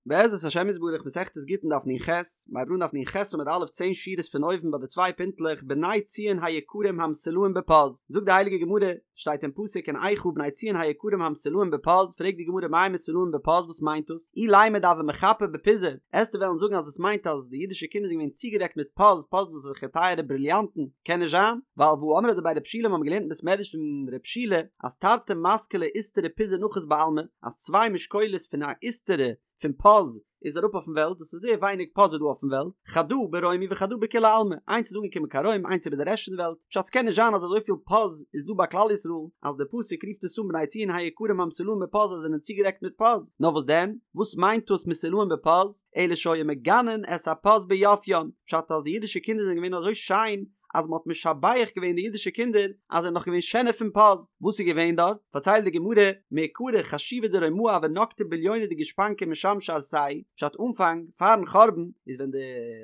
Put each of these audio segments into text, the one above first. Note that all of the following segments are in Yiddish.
בעזרת השם יתברך מסכת גיטין דף נ"ח, מ'הייבט אן דף נ"ח עמוד א' צען שורות פון אויבן ביי די צוויי פינטלעך בני ציון היקרים המסולאים בפז, זאגט די הייליגע גמרא, שטייט אין פסוק אין איכה בני ציון היקרים המסולאים בפז, פרעגט די גמרא מאי מסולאים בפז וואס מיינט דאס, אילימא דהוו מיחפי בפיזא, עסטו וועלן זאגן אז עס מיינט אז די אידישע קינדער זענען געווען צוגעדעקט מיט פז, פז דאס איז אזעלכע טייערע בריליאנטן, קען נישט זיין, ווייל והא אמרי דבי רב שילא מ'האבן געלערנט אין בית מדרש פון רב שילא אז תרתי מתקלי איסתרא פיזא נחית בעלמא, אז צוויי משקולות פון א איסתרא פון פז איז אראפ אויפן וועלט, דאס איז זייער ווייניג פז איז דא אויפן וועלט, חדא ברומי וחדא בכולי עלמא, איינס איז אנגעקומען קיין רוים איינס איבער די רעשט פון די וועלט, פשט ס'קען נישט זיין אז אזויפיל פז איז דא ביי כלל ישראל אז די פסוק רופט עס אן בני ציון היקרים המסולאים בפז אז זיי זענען צוגעדעקט מיט פז, נאר וואס דען? וואס מיינט דאס מסולאים בפז? אלא שהיו מגנין את הפז ביפיין, פשט אז די אידישע קינדער זענען געווען אזוי שיין אז מען האט משבח געווען די אידישע קינדער אז זיי זענען נאך געווען שענער פון פז. וואס איז געווען דארט? פארציילט די גמרא, מעיקרא חשיבי דרומאי הוו נקטי בליונא דגושפנקא ומשמשי ערסייהו, פשט אנפאנג, פארן חורבן, איז ווען די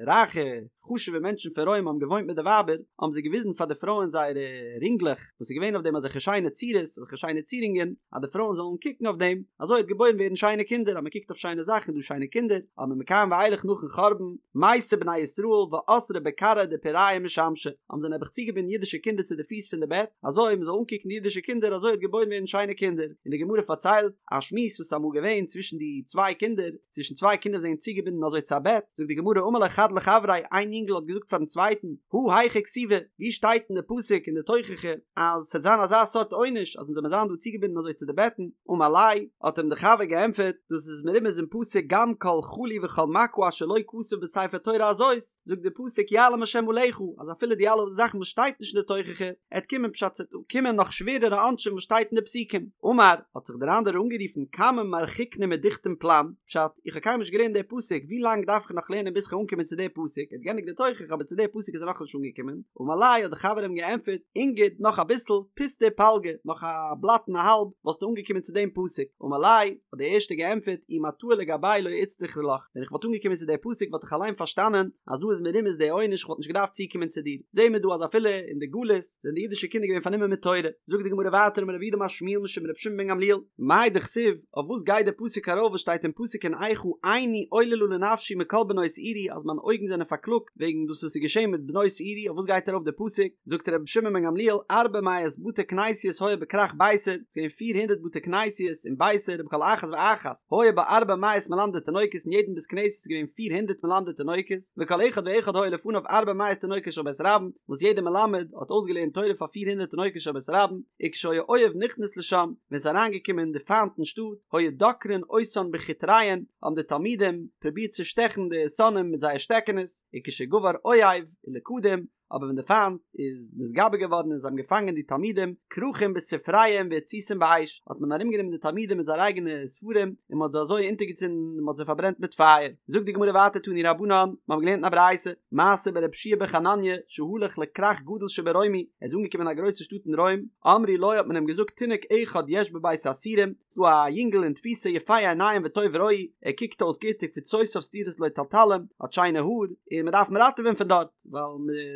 רייכע חשובע מענטשן פון רוים האבן געוואוינט מיט די ווייבער, האבן זיי געוויזן פאר די פרויען זייערע רינגלעך, וואס איז געווען אויף דעם אזעלכע שיינע צורות, אזעלכע שיינע צירונגען, אז די פרויען זאלן קוקן אויף דעם, אזוי וועט געבוירן ווערן שיינע קינדער, אז מען קוקט אויף שיינע זאכן איז דא שיינע קינדער, אבער מכאן ואילך נאכן חורבן, מייתו בני ישראל ואסרי בכרעי דפורייהו משמשי, האבן זיי נעבעך צוגעבינדן אידישע קינדער צו די פיס פון די בעט, אזוי מען זאל אנקוקן די אידישע קינדער אזוי וועט געבוירן ווערן שיינע קינדער, און די גמרא פארציילט א שמועס וואס איז אמאל געווען צווישן די צוויי קינדער, צווישן צוויי קינדער וואס זענען צוגעבינדן אזוי צו א בעט, זאגט די גמרא אמר ליה חד לחבריה, איין יונגל האט געזאגט פארן צווייטן, הא היכא כתיבא, ווי שטייט אין די פסוק אין די תוכחה אז ס'וועט זיין אזא סארט עונש אז אונז זאל מיר זיין דא צוגעבינדן אזוי צו די בעטן, אמר ליה, האט אים די חבר געענטפערט, דאס איז מרומז אין פסוק גם כל חלי וכל מכה אשר לא כתוב בספר תורה הזאת, זאגט די פסוק יעלם השם עליך, אז אפילו די אלע זאכן וואס שטייט נישט אין די תוכחה, עט קומען פשט ס'עט קומען נאך שווערערע עונשים וואס שטייט אין די פסוקים. אמר, האט זיך דער אנדערער אנגערופן כמה מרחיקנא מדכתום פלן, פשט, איך האב קיינמאל נישט געלערנט די פסוק, ווי לאנג דארף איך נאך לערנען ביז כ'וועל אנקומען צו די פסוק, ער האט געענדיגט די תוכחה אבער צו די פסוק איז ער נאכנישט אנגעקומען, אמר ליה האט דער חבר אים געענטפערט, אינגיד, נאך אביסל, פוסטא ופלגא, נאך א בלאט און א האלב, וואלסטו אנגעקומען צו דעם פסוק, אמר ליה, האט דער ערשטער געענטפערט, אי מטאי לגבאי לא איצטריכא לך, ווען איך וואלט אנגעקומען צו די פסוק וואלט איך אליין פארשטאנען אז דא איז מרומז די עונש איך וואלט נישט געדארפט צוקומען צו דיר, זעהן מיר דא אז אפילו אין די גלות זענען די אידישע קינדער געווען פארנומען מיט תורה, זאגט די גמרא ווייטער אמר רב יהודה אמר שמואל משום רבי שמעון בן גמליאל, מאי דכתיב, אויף וואס גייט די פסוק ארויף וואס שטייט אין פסוק אין איכה עיני עוללה לנפשי מכל בנות עירי אז מיינע אויגן זענען פארקלאגט וועגן דאס וואס איז געשען מיט בנות עירי אויף וואס גייט ארויף די פסוק, זאגט רבי שמעון בן גמליאל ארבע מאות בתי כנסיות היו בכרך ביתר, ס'איז געווען פיר הונדערט בתי כנסיות אין ביתר ובכל אחת ואחת היו בה ארבע מאות מלמדי תינוקות אין יעדן בית כנסת איז געווען פיר הונדערט מלמדי תינוקות וכל אחד ואחד היו לפניו ארבע מאות תינוקות של בית רבן וואס יעדער מלמד האט אויסגעלערנט תורה פאר פיר הונדערט תינוקות של בית רבן וכשהיה אויב נכנס לשם ווען ס'איז אריינגעקומען די פיינט אין שטאט היו דוקרין אותן בחוטריהן האבן די תלמידים פרובירט צו שטעכן די שונאים מיט זייער שטעקענעס וכשגבר אויב ולכדום אבער ווען די פיינט איז נתגבר געווארן און זיי האבן געפאנגען די תלמידים, כרכום בספריהם והציתום באש, האט מען ארומגענומען די תלמידים מיט זייערע אייגענע ספרים און מען האט זיי אזוי אונטערגעצינדן און מען האט זיי פארברענט מיט פייער. זאגט די גמרא ווייטער תנו רבנן, מיר האבן געלערנט אין א ברייתא, מעשה ברבי יהושע בן חנניה שהלך לכרך גדול שברומי, ער איז אנגעקומען אין א גרויסע שטאט אין רוים, אמרו לו האט מען אים געזאגט תינוק אחד יש בבית האסורים, ס'דא א יונגל אין תפיסה יפה עיניים וטוב רואי, ער קוקט אויס גוט וקווצותיו סדורות לו תלתלים, האט שיינע האר, און מען דארף אים ראטעווען פון דארט. ווייל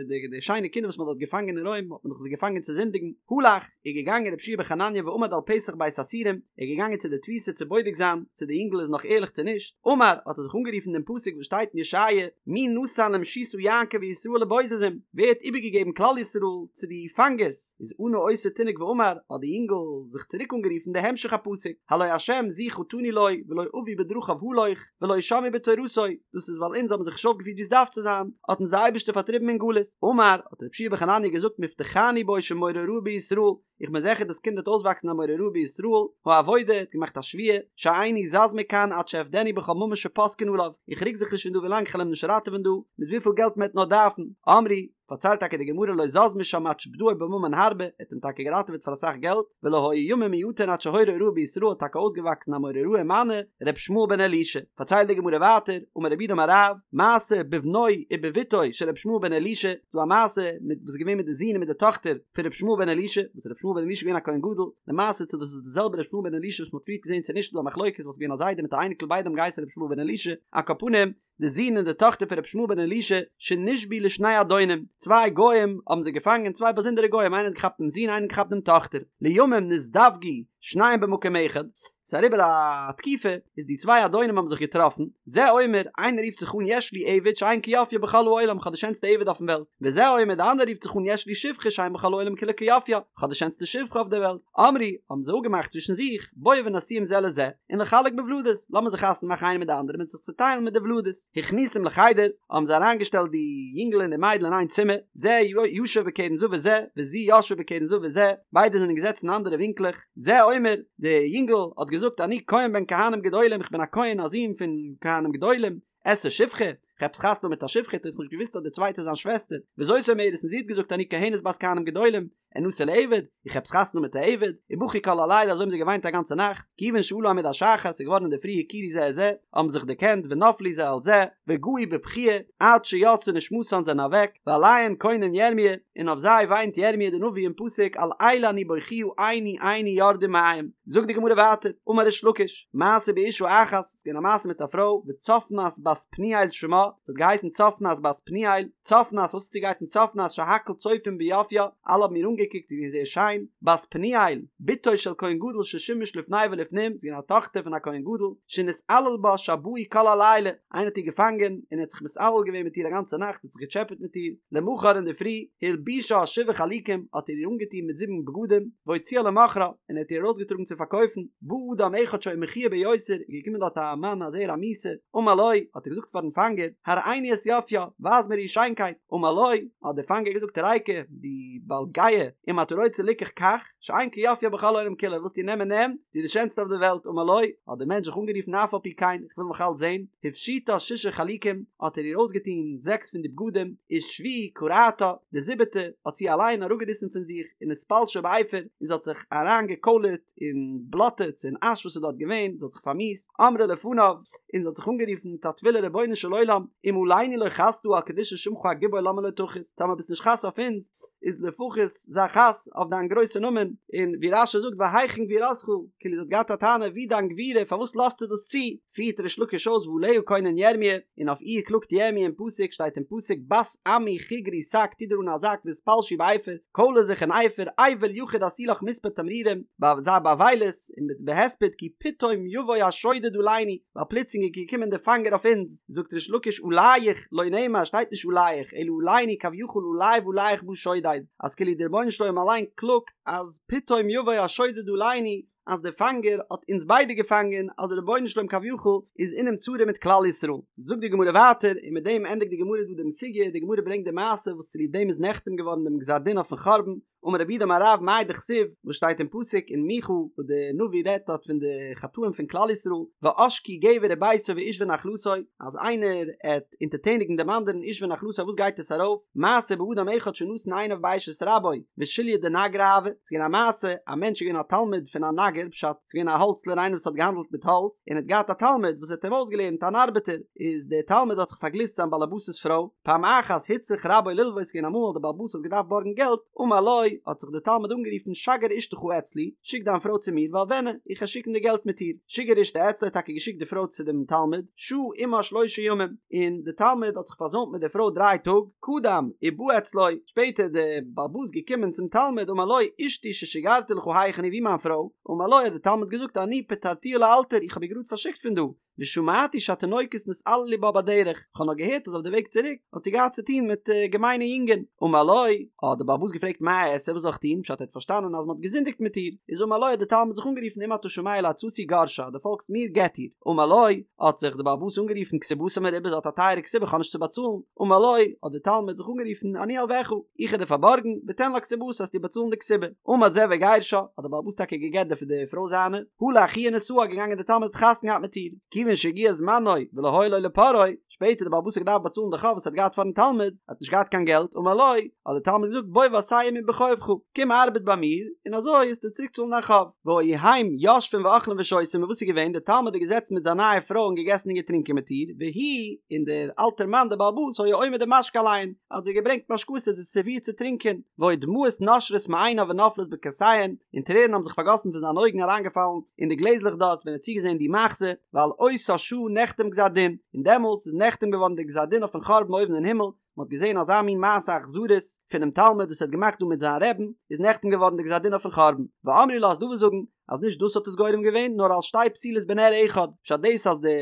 די די שיינע קינדער וואס מען האט דארט געפאנגען אין רוים האט מען דאך זיי געפאנגען צו זינדיגן, הלך, איז געגאנגען רבי יהושע בן חנניה ועמד על פתח בית האסורים, ער איז געגאנגען צו די תפיסה צו בודק זיין צו די יונגל איז נאך ערליך צו נישט, אמר, האט ער זיך אנגערופן דעם פסוק וואס שטייט אין ישעיה, מי נתן למשיסה יעקב וישראל לבוזזים, ווער האט איבערגעגעבן כלל ישראל צו די פאנגערס, איז ענה אותו תינוק ואמר, האט די יונגל זיך צוריק אנגערופן די המשך הפסוק, הלא השם זו חטאנו לו ולא אבו בדרכיו הלוך, ולא שמעו בתורתו, דאס איז ווייל אונז האבן זיך נישט אויפגעפירט ווי עס דארף צו זיין, האט אונז דער אייבערשטער פארטריבן אין גלות. אמר, האט רבי יהושע בן חנניה געזאגט מובטחני בו שמורה הוראה בישראל, איך בין זעכער דאס קינד וועט אויסוואקסן א מורה הוראה בישראל, העבודה, האט געמאכט א שבועה, שאיני זז מכאן עד שאפדנו בכל ממון שפוסקין עליו, איך רוק זיך נישט פון דא ווילאנג כ'על אים נישט ראטעווען דא, מיט וויפיל געלט מען וועט נאר דארפן. אמרו, פארציילט טאקע די גמרא לא זז משם עד שפדאו בממון הרבה, ער האט אים טאקע געראטעוועט פאר אסאך געלט, ולא היו ימים מועטין עד שהורה הוראה בישראל האט טאקע אויסגעוואקסן א מורה הוראה ומנו ר' ישמעאל בן אלישע, פארציילט די גמרא ווייטער, אמר רב יהודה אמר רב, מעשה בבנו ובבתו של ר' ישמעאל בן אלישע, ס'דא א מעשה מיט וואס איז געווען מיט די זון און מיט די טאכטער פון ר' ישמעאל בן אלישע, וואס ר' ישמעאל בן אלישע איז געווען א כהן גדול, למעשה צו דאס איז די זעלבע ר' ישמעאל בן אלישע וואס מ'האט פריערט געזען צו נישט איז דא א מחלוקת וואס איז געווען א זיידע מיט א אייניקל ביידע האבן געהייסן ר' ישמעאל בן אלישע, על כל פנים, די זון און די טאכטער פון רבי ישמעאל בן אלישע שנשבו לשני אדונים, צוויי גוים האבן זיי געפאנגען, צוויי באזונדערע גוים, איינער האט געכאפט דעם זון איינער האט געכאפט דעם טאכטער, לימים נזדווגו שניהם במקום אחד, ס'איז אריבער א תקופה, איז די צוויי אדונים האבן זיך געטראפן, זה אומר, איינער רופט זיך אן יש לי עבד שאין כיופיו בכל העולם, כ'האב די שענסטע עבד אויפן וועלט, וזה אומר, די אנדערע רופט זיך אן יש לי שפחה שאין בכל העולם כולה כיופיה, כ'האב די שענסטע שפחה אויף דער וועלט. אמרו, האבן זיי אפגעמאכט צווישן זיך, בואו ונשיאם זה לזה, ונחלק בוולדות, לאמיר זיך חתונה מאכן איינער מיט די אנדערע און זיך צעטיילן מיט די ולדות. הכניסום לחדר, האבן זיי אריינגעשטעלט די יונגל און די מיידל אין איין צימער, זה ישב בקרן זווית זה, וזו ישבה בקרן זווית זה, ביידע זענען געזעצן אין אנדערע ווינקלעך, זה אומר, די יונגל האט געזאגט אני כהן בן כהנים גדולים, איך בין א כהן א זון פון כהנים גדולים, אשא שפחה, כ'האב עפעס חתונה מיט א שפחה, האט ער נישט געוואוסט אז די צווייטע איז זיין שוועסטער, וזאת אומרת, און זי האט געזאגט אני כהנת בת כהנים גדולים, אנשא לעבד, איך האב עפעס חתונה מיט א עבד, ובכו כל הלילה אזוי האבן זיי געוויינט א גאנצע נאכט, כיוון שעלה עמוד השחר ס'איז געווארן אינדערפרי הכירו זה את זה, האבן זיך דערקענט ונפלו זה על זה, וגעו בבכיה, עד שיצאה נשמתן זענען אוועק, ועליהן קונן ירמיה, און אויף זיי וויינט ירמיה די נביא אין פסוק על אלה אני בוכיה עיני עיני יורדה מים, זאגט די גמרא ווייטער, אמר ריש לקיש, מעשה באשה אחת, ס'איז געווען א מעשה מיט א פרוי, וצפנת בת פנואל שמה, זי האט געהייסן צפנת בת פנואל, צפנת, וואס האט זי געהייסן צפנת, שהכל צופים ביופיה, אלע האבן איר אנגעקוקט, זי איז געווען זייער שיין, בת פנואל, בתו של כהן גדול ששימש לפני ולפנים, זי איז געווען א טאכטער פון א כהן גדול, שנתעלל בה שבאי כל הלילה, איינער האט איר געפאנגען, און ער האט זיך מתעלל געווען מיט איר א גאנצע נאכט, האט זיך געטשעפעט מיט איר, למחר אינדערפרי, הלבישה שבעה חלוקים, האט ער איר אנגעטון מיט זיבן בגדים, והוציאה למוכרה, און ער האט איר ארויסגעטראגן צו פארקויפן, בא אדם אחד שהיה מכוער ביותר, איז געקומען דארט א מאן א זעהר א מיאוסער, אמר לו, האט ער געזאגט פארן פאנגער, הראיני את יופיה, ווייז מיר איר שיינקייט, אמר לו, האט דער פאנגער געזאגט ריקא, דו בעל גאוה, אם אתה רוצה ליקח קח, שאין כיופיה בכל העולם כולו, ווילסט איר נעמען נעם, זי איז די שענסטע אויף דער וועלט, אמר לו, האט דער מענטש זיך אנגערופן אף על פי כן, איך וויל נאך אלץ זען, הפשיטה שישה חלוקים, האט ער איר אויסגעטון זעקס פון די בגדים, ושביעי קרעתה, די זיבעטע האט זי אליין אראפגעריסן פון זיך, ונתפלשה באפר, און זי האט זיך אריינגעקוילערט אין בלאטע אין אש וואס איז דארט געווען, זי האט זיך פארמיאוסט, אמרה לפניו, און זי האט זיך אנגערופן מיט א תפילה רבונו של עולם, אם עלינו לא חסת על קדושת שמך הגיבור למה לא תחוס, טאמער ביסט נישט חס אויף אונז, איז לפחות זיי חס אויף דיין גרויסע נאמען, און ווי רש"י זאגט והיכן גבורתך, כאילו זי האט געהאט א טענה ווי דיין גבורה פארוואס לאזטו דאס צו, פירט ריש לקיש אויס ועליה קונן ירמי', און אויף איר קלאגט ירמי' אין פסוק, שטייט אין פסוק בת עמי חגרי שק טו דיר אן א זאק והתפלשי באפר, קוילער זיך אין אפר, אבל יחיד עשי לך מספד תמרורים, זיי באבילות און מיט בהספד כי פתאום יבוא השודד עלינו, ווייל פלוצלינג איז געקומען דער פאנגער אויף אונז, זאגט ריש לקיש עליך לא נאמר שטייט נישט עליך אלא עלינו כביכול עלי ועליך בא שודד, אז כאילו דער רבונו של עולם אליין קלאגט אז פתאום יבוא השודד עלינו, אז דער פאנגער האט אונז ביידע געפאנגען, אז דער רבונו של עולם כביכול איז אינעם צרה מיט כלל ישראל. זאגט די גמרא ווייטער, און מיט דעם ענדיגט די גמרא דא דעם סוגיא, די גמרא ברענגט די מעשה וואס צוליב דעם איז נחתם געווארן דעם גזר דין אויפן חורבן, אמר רב יהודה אמר רב מאי דכתיב, וואס שטייט אין פסוק אין מיכה וואס די נביא רעדט דארט פון די חטאים פון כלל ישראל, ועשקו גבר וביתו ואיש ונחלתו, אז איינער עט אונטערטעניגן דעם אנדערן איש ונחלתו וואס גייט עס ארויף, מעשה באדם אחד שנתן עיניו באשת רבו, ושוליא דנגרי הוה, ס'איז געווען א מעשה, א מענטש איז געווען א תלמיד פון א נגר, פשט, ס'איז געווען א האלצלער איינער וואס האט געהאנדלט מיט האלץ, און האט געהאט א תלמיד וואס האט אים אויסגעלערנט אן ארבעטער, איז דער תלמיד האט זיך פארגליסט זיין באלעבאס'ס פרוי, פעם אחת הוצרך רבו ללוות, ס'איז געווען אמאל דער באלעבאס האט געדארפט בארגן געלט, אמר לו, האט זיך דער תלמיד אנגערופן שגר אשתך אצלי, שיק דיין פרוי צו מיר ואלונה, איך וועל שיקן די געלט מיט איר, שיגר אשתו אצלו האט טאקע געשיקט די פרוי צו דעם תלמיד, שהה עמה שלושה ימים, און דער תלמיד האט זיך פארזוימט מיט דער פרוי דריי טאג, קדם ובא אצלו, שפעטער איז דער בעל הבית געקומען צום תלמיד אמר לו אשתי ששיגרתי לך היכן היא וואו מיין פרוי, אמר לו האט דער תלמיד געזאגט אני פטרתיה לאלתר איך האב איר גראד פארשיקט פון דא, ושמעתי שהתינוקות נתעללו בה בדרך, איך האב נאר געהערט אז אויף די וועג צוריק האט זי געהאט צו טון מיט געמיינע יונגען, אמר לו, האט דער בעל הבית געפרעגט מה אעשה וואס זאל איך טון, פשט ער האט פארשטאנען אז מען האט געזינדיגט מיט איר, איז אמר לו האט דער תלמיד זיך אנגערופן אם אתה שומע לעצתי גרשה דו פאלגסט מיר גט איר, אמר לו, האט זיך דער בעל הבית אנגערופן כתובתה מרובה זי האט א טייערע כתובה איך האב נישט צו באצאלן, אמר לו, האט דער תלמיד זיך אנגערופן, אני אלווך, איך וועל דיר פארבארגן, ותן לה כתובתה וועסטו באצאלן די כתובה. עמד זה וגירשה, האט דער בעל הבית טאקע גע'גט די פרוי זיינע, הלך הוא ונשאה, געגאנגען דער תלמיד האט חתונה געהאט מיט איר, כיוון שהגיע זמנו ולא היה לו לפורעו, שפעטער דער בעל הבית האט געדארפט באצאלן די חוב וואס ער האט געהאט פארן תלמיד, ער האט נישט געהאט קיין געלט, אמר לו, האט דער תלמיד געזאגט, בוא ועשה עמי בחובך, קום ארבעט ביי מיר, און אזוי וועסטו צוריק צאלן דיין חוב. והיו הם יושבים ואוכלים ושותים, און וואס איז געווען, דער תלמיד איז געזעצן מיט זיין נייע פרוי און געגעסן און געטרינקען מיט איר, והוא, און דער אלטער מאן דער בעל הבית היה עומד ומשקה עליהן, האט זיי געברענגט משקאות זיי סערווירט צו טרינקען, והיו דמעות נושרות מעיניו ונופלות בכוסיהן, און טרערן האבן זיך פארגאסן פון זיינע אויגן אריינגעפאלן אין די גלעזלעך דארט ווען ער האט צוגעזען די מחזה, ועל אותה שעה נחתם גזר דין, און דעמאלטס איז נחתם געווארן דער גזר דין אויפן חורבן אויבן אין הימל, מען האט געזען אזא מין מעשה אכזריות פונעם תלמיד וואס ער האט געמאכט דא מיט זיין רעבן, איז נחתם געווארן די גזר דין אויפן חורבן. ואמרי לה ס'דא וואס זאגן אז נישט דאס האט עס גורם געווען נאר על שתי פתילות בנר אחד, פשט דאס אז די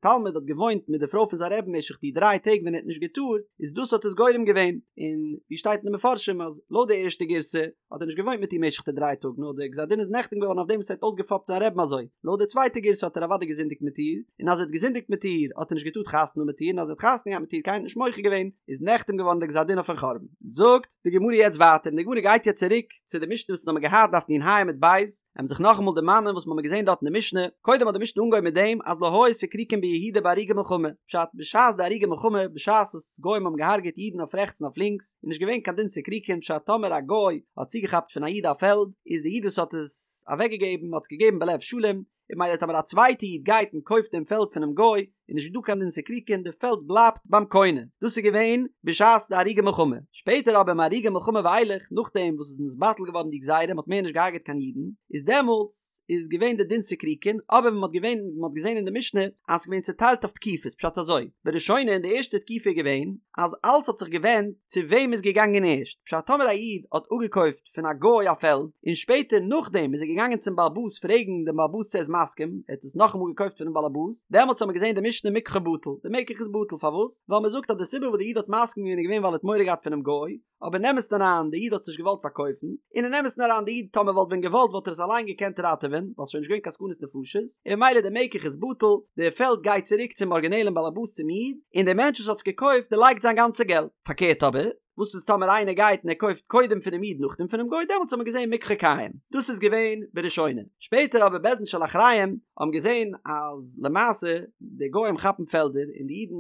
תלמיד האט געוואוינט מיט די פרוי פון זיין רבי'ן משך די דריי טעג ווען ער האט נישט געטארט איז דאס האט עס גורם געווען, און ווי שטייט אין די מפרשים אז לויט די ערשטע גירסא האט ער נישט געוואוינט מיט איר משך די דריי טאג נאר די גזר דין איז נחתם געווארן אויף דעם וואס ער האט אויסגעפאפט זיין רבי'ן אזוי, לויט די צווייטע גירסא האט ער אוודאי געזינדיגט מיט איר, און אז ער האט געזינדיגט מיט איר האט ער נישט געטארט חתונה האבן מיט איר און אז ער האט חתונה געהאט מיט איר קיינער האט נישט מוחה געווען איז נחתם געווארן די גזר דין אויפן חורבן. זאגט די גמרא יעצט ווייטער און די גמרא גייט יעצט צוריק צו די משנה וואס אונז האבן געהאט דף נ"ה עמוד ב', עמיר זיך נאכאמאל דערמאנען וואס מ'האמיר געזען דארט אין די משנה, קודם האט די משנה אנגעהויבן מיט דעם אז לא היו סיקריקין ביהודה בהרוגי מלחמה, פשט, בשעת די הרוגי מלחמה, בשעת וואס גוים האבן געהארגעט אידן אויף רעכטס און אויף לינקס, איז נישט געווען קיין דין סיקריקין, פשט טאמער א גוי האט צוגעכאפט פון א איד א פעלד, איז די איד וואס האט עס אוועקגעגעבן האט עס געגעבן בלב שלם, און ממילא טאמער א צווייטע איד גייט און קויפט דעם פעלד פונעם גוי, איז נישט דא קיין דין סיקריקין, די פעלד בלייבט ביים קונה. דאס איז געווען בשעת די הרוגי מלחמה. שפעטער אבער מהרוגי מלחמה ואילך, נאכדעם וואס עס איז נתבטל געווארן די גזירה, מען האט מער נישט געהארגעט קיין אידן, איז דעמאלטס איז געווען די דין סיקריקין, אבער ווי מען האט געווען מען האט געזען אין די משנה אז ס'איז געווען צוטיילט אויף תקופות, פשט אזוי, בראשונה אין די ערשטע תקופה איז געווען אז אלץ האט זיך געווענדט צו וועם איז געגאנגען ערשט, פשט טאמער א איד האט אפגעקויפט פון א גוי א פעלד, און שפעטער נאכדעם איז ער געגאנגען צום באלעבאס פרעגן דעם באלעבאס צו ער איז מסכים, ער האט עס נאכאמאל געקויפט פונעם באלעבאס, דעמאלטס האט מען געזען די משנה מקחו בטל, די מקח איז בטל, פארוואס? ווייל מען זאגט אז די סיבה וואס די איד האט מסכים געווען איז געווען ווייל ער האט מורא געהאט פונעם גוי, אבער אין אמת'ן אריין די איד האט עס נישט געוואלט פארקויפן, און אין אמת'ן אריין די איד טאמער וואלט ווען געוואלט וואלט ער עס אליין געקענט ראטעווען, ווייל ס'איז שוין נישט געווען קיין סכנת נפשות, און ממילא די מקח איז בטל, די פעלד גייט צוריק צום ארגינעלען באלעבאס צום איד, און דער מענטש וואס האט עס געקויפט דערלייגט זיין גאנצע געלט. פארקערט אבער, וואס איז טאמער איינער גייט און ער קויפט קודם פונעם איד נאכדעם פונעם גוי דעמאלטס האט מען געזען מקחו קיים דאס איז געווען בראשונה שפעטער אבער בית דין של אחריהם האבן געזען אז למעשה די גוים כאפן פעלדער און די אידן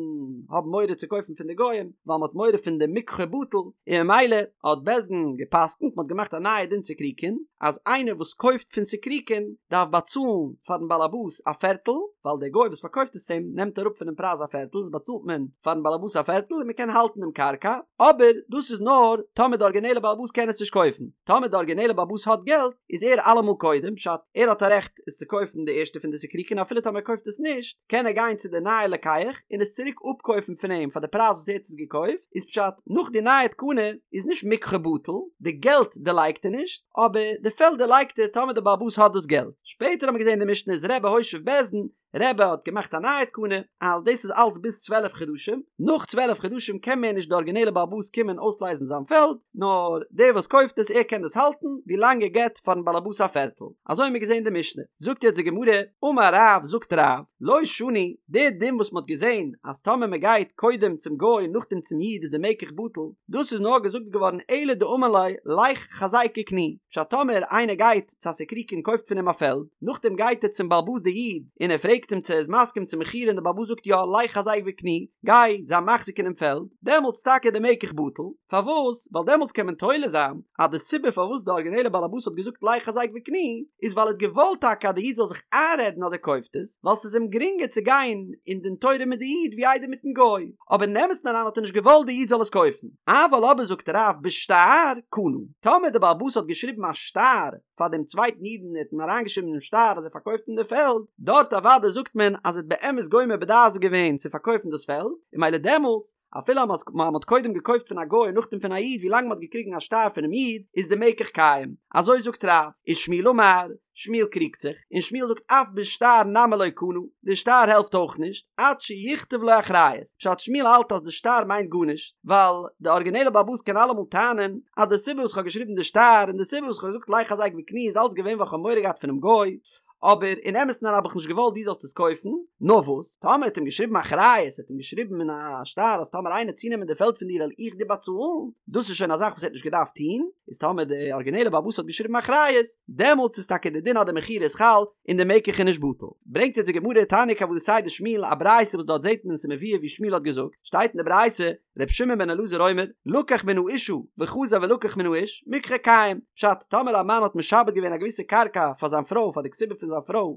האבן מורא צו קויפן פון די גוים ווייל מען האט מורא פון די מקחו בטל און ממילא האט בית דין געפסקנט מען האט געמאכט א נייע דין סיקריקין אז איינער וואס קויפט פון סיקריקין דארף באצאלן פארן באלעבאס א פערטל ווייל דער גוי וואס פארקויפט עס אים נעמט אראפ פונעם פרייז א פערטל איז באצאלט מען פארן באלעבאס א פערטל און מען קען האלטן דעם קרקע, אבער דאס איז נאר טאמער די ארגינעלע באלעבאס קען עס נישט קויפן, טאמער די ארגינעלע באלעבאס האט געלט איז ער אלעמאל קודם, פשט, ער האט א רעכט עס צו קויפן די ערשטע פון די סיקריקין אפילו טאמער ער קויפט עס נישט קען ער גיין צו די נייע לוקח און עס צוריק אפקויפן פון אים פאר די פרייז וואס ער האט עס געקויפט, איז פשט, נאך די נייע תקנה איז נישט מקחו בטל, די געלט דערלייגט ער נישט, אבער די פעלד דערלייגט ער טאמער די באלעבאס האט דאס געלט. שפעטער האט מען געזען די משנה איז רבי הושיב בית דין, רבי האט געמאכט א נייע תקנה אז דאס איז אלץ ביז 12 חדשים, נאך 12 חדשים קען מער נישט די ארגינעלע בעל הבית קומען אויסלייזן זיין פעלד, נאר דער וואס קויפט עס ער קען דאס האלטן ווי לאנג ער געבט פארן בעל הבית א פערטל, אזוי האבן מיר געזען די משנה. זאגט יעצט די גמרא, אמר רב, זאגט רב, לא שנו, די דין וואס מען האט געזען אז טאמער מען גייט קודם צום גוי און נאכדעם צום איד איז די מקח בטל, דאס איז נאר געזאגט געווארן אלא דאמר ליה לך חזק וקני, פשט טאמער איינער גייט צו א סיקריקי און קויפט פון אים א פעלד, נאכדעם גייט ער צום בעל הבית די איד און ער פרעגט אים צו ער איז מסכים צום מכירה און די בעל הבית זאגט יא לך חזק וקני, גיי זיי מחזיק אינעם פעלד, דעמאלטס טאקע די מקח בטל, פארוואס? ווייל דעמאלטס קען מען תולה זיין אז די סיבה פארוואס די ארגינעלע בעל הבית האט געזאגט לך חזק וקני איז ווייל ער האט געוואלט טאקע אז די איד זאל זיך איינרעדן אז ער קויפט עס, ווייל ס'איז אים גרינגער צו גיין אין דין תורה מיט די איד ווי איידער מיטן גוי, אבער אין אמת'ן אריין האט ער נישט געוואלט די איד זאל עס קויפן. אבל אבער זאגט רב בשטר קנה, טאמער די בעל הבית האט געשריבן א שטר פאר דעם צווייטן איד און ער האט אים אריינגעשריבן אינעם שטר אז ער פארקויפט אים די פעלד, דארט אוודאי זאגט מען אז ער האט באמת גומר בדעת געווען צו פארקויפן דאס פעלד, און ממילא דעמאלטס, אפילו אז מען האט קודם געקויפט פון א גוי און נאכדעם פון א איד ווי לאנג מען האט געקריגן א שטר פונעם איד איז די מקח קיים, אזוי זאגט רב, ושמואל אמר, שמואל קריגט זיך, און שמואל זאגט אף בשטר נמי לא קנה, די שטר העלפט אויך נישט, עד שיכתוב לו אחריות, פשט שמואל האלט אז די שטר מיינט גארנישט, ווייל די ארגינעלע בעל הבית קען אלעמאל טענה'ן אז די סיבה וואס כ'האב געשריבן די שטר און די סיבה וואס כ'האב געזאגט לך חזק וקני איז אלץ געווען ווייל כ'האב מורא געהאט פונעם גוי, אבער אין אמת'ן אריין האב איך נישט געוואלט דו זאלסט עס קויפן, נאר וואס, טאמער האט אים געשריבן אחריות, האט אים געשריבן אין א שטר אז טאמער איינער צונעמען די פעלד פון דיר וועל איך דיר באצאלן, דאס איז שוין א זאך וואס ער האט נישט געדארפט טון, איז טאמער די ארגינעלע בעל הבית האט געשריבן אחריות, דעמאלטס איז טאקע די דין אז די מכירה איז חל און די מקח איז נישט בטל. ברענגט אונז די גמרא תניא כוותיה דשמואל א ברייתא וואס דארט זעט מען ס'מבואר ווי שמואל האט געזאגט, שטייט אין די ברייתא, ר' שמעון בן אלעזר אומר, לקח מן האשה וחזר ולקח מן האיש, מקחו קיים, פשט, טאמער א מאן האט משעבד געווען א געוויסע קרקע פאר זיין פרוי פאר די כתובה פון זיין פרוי,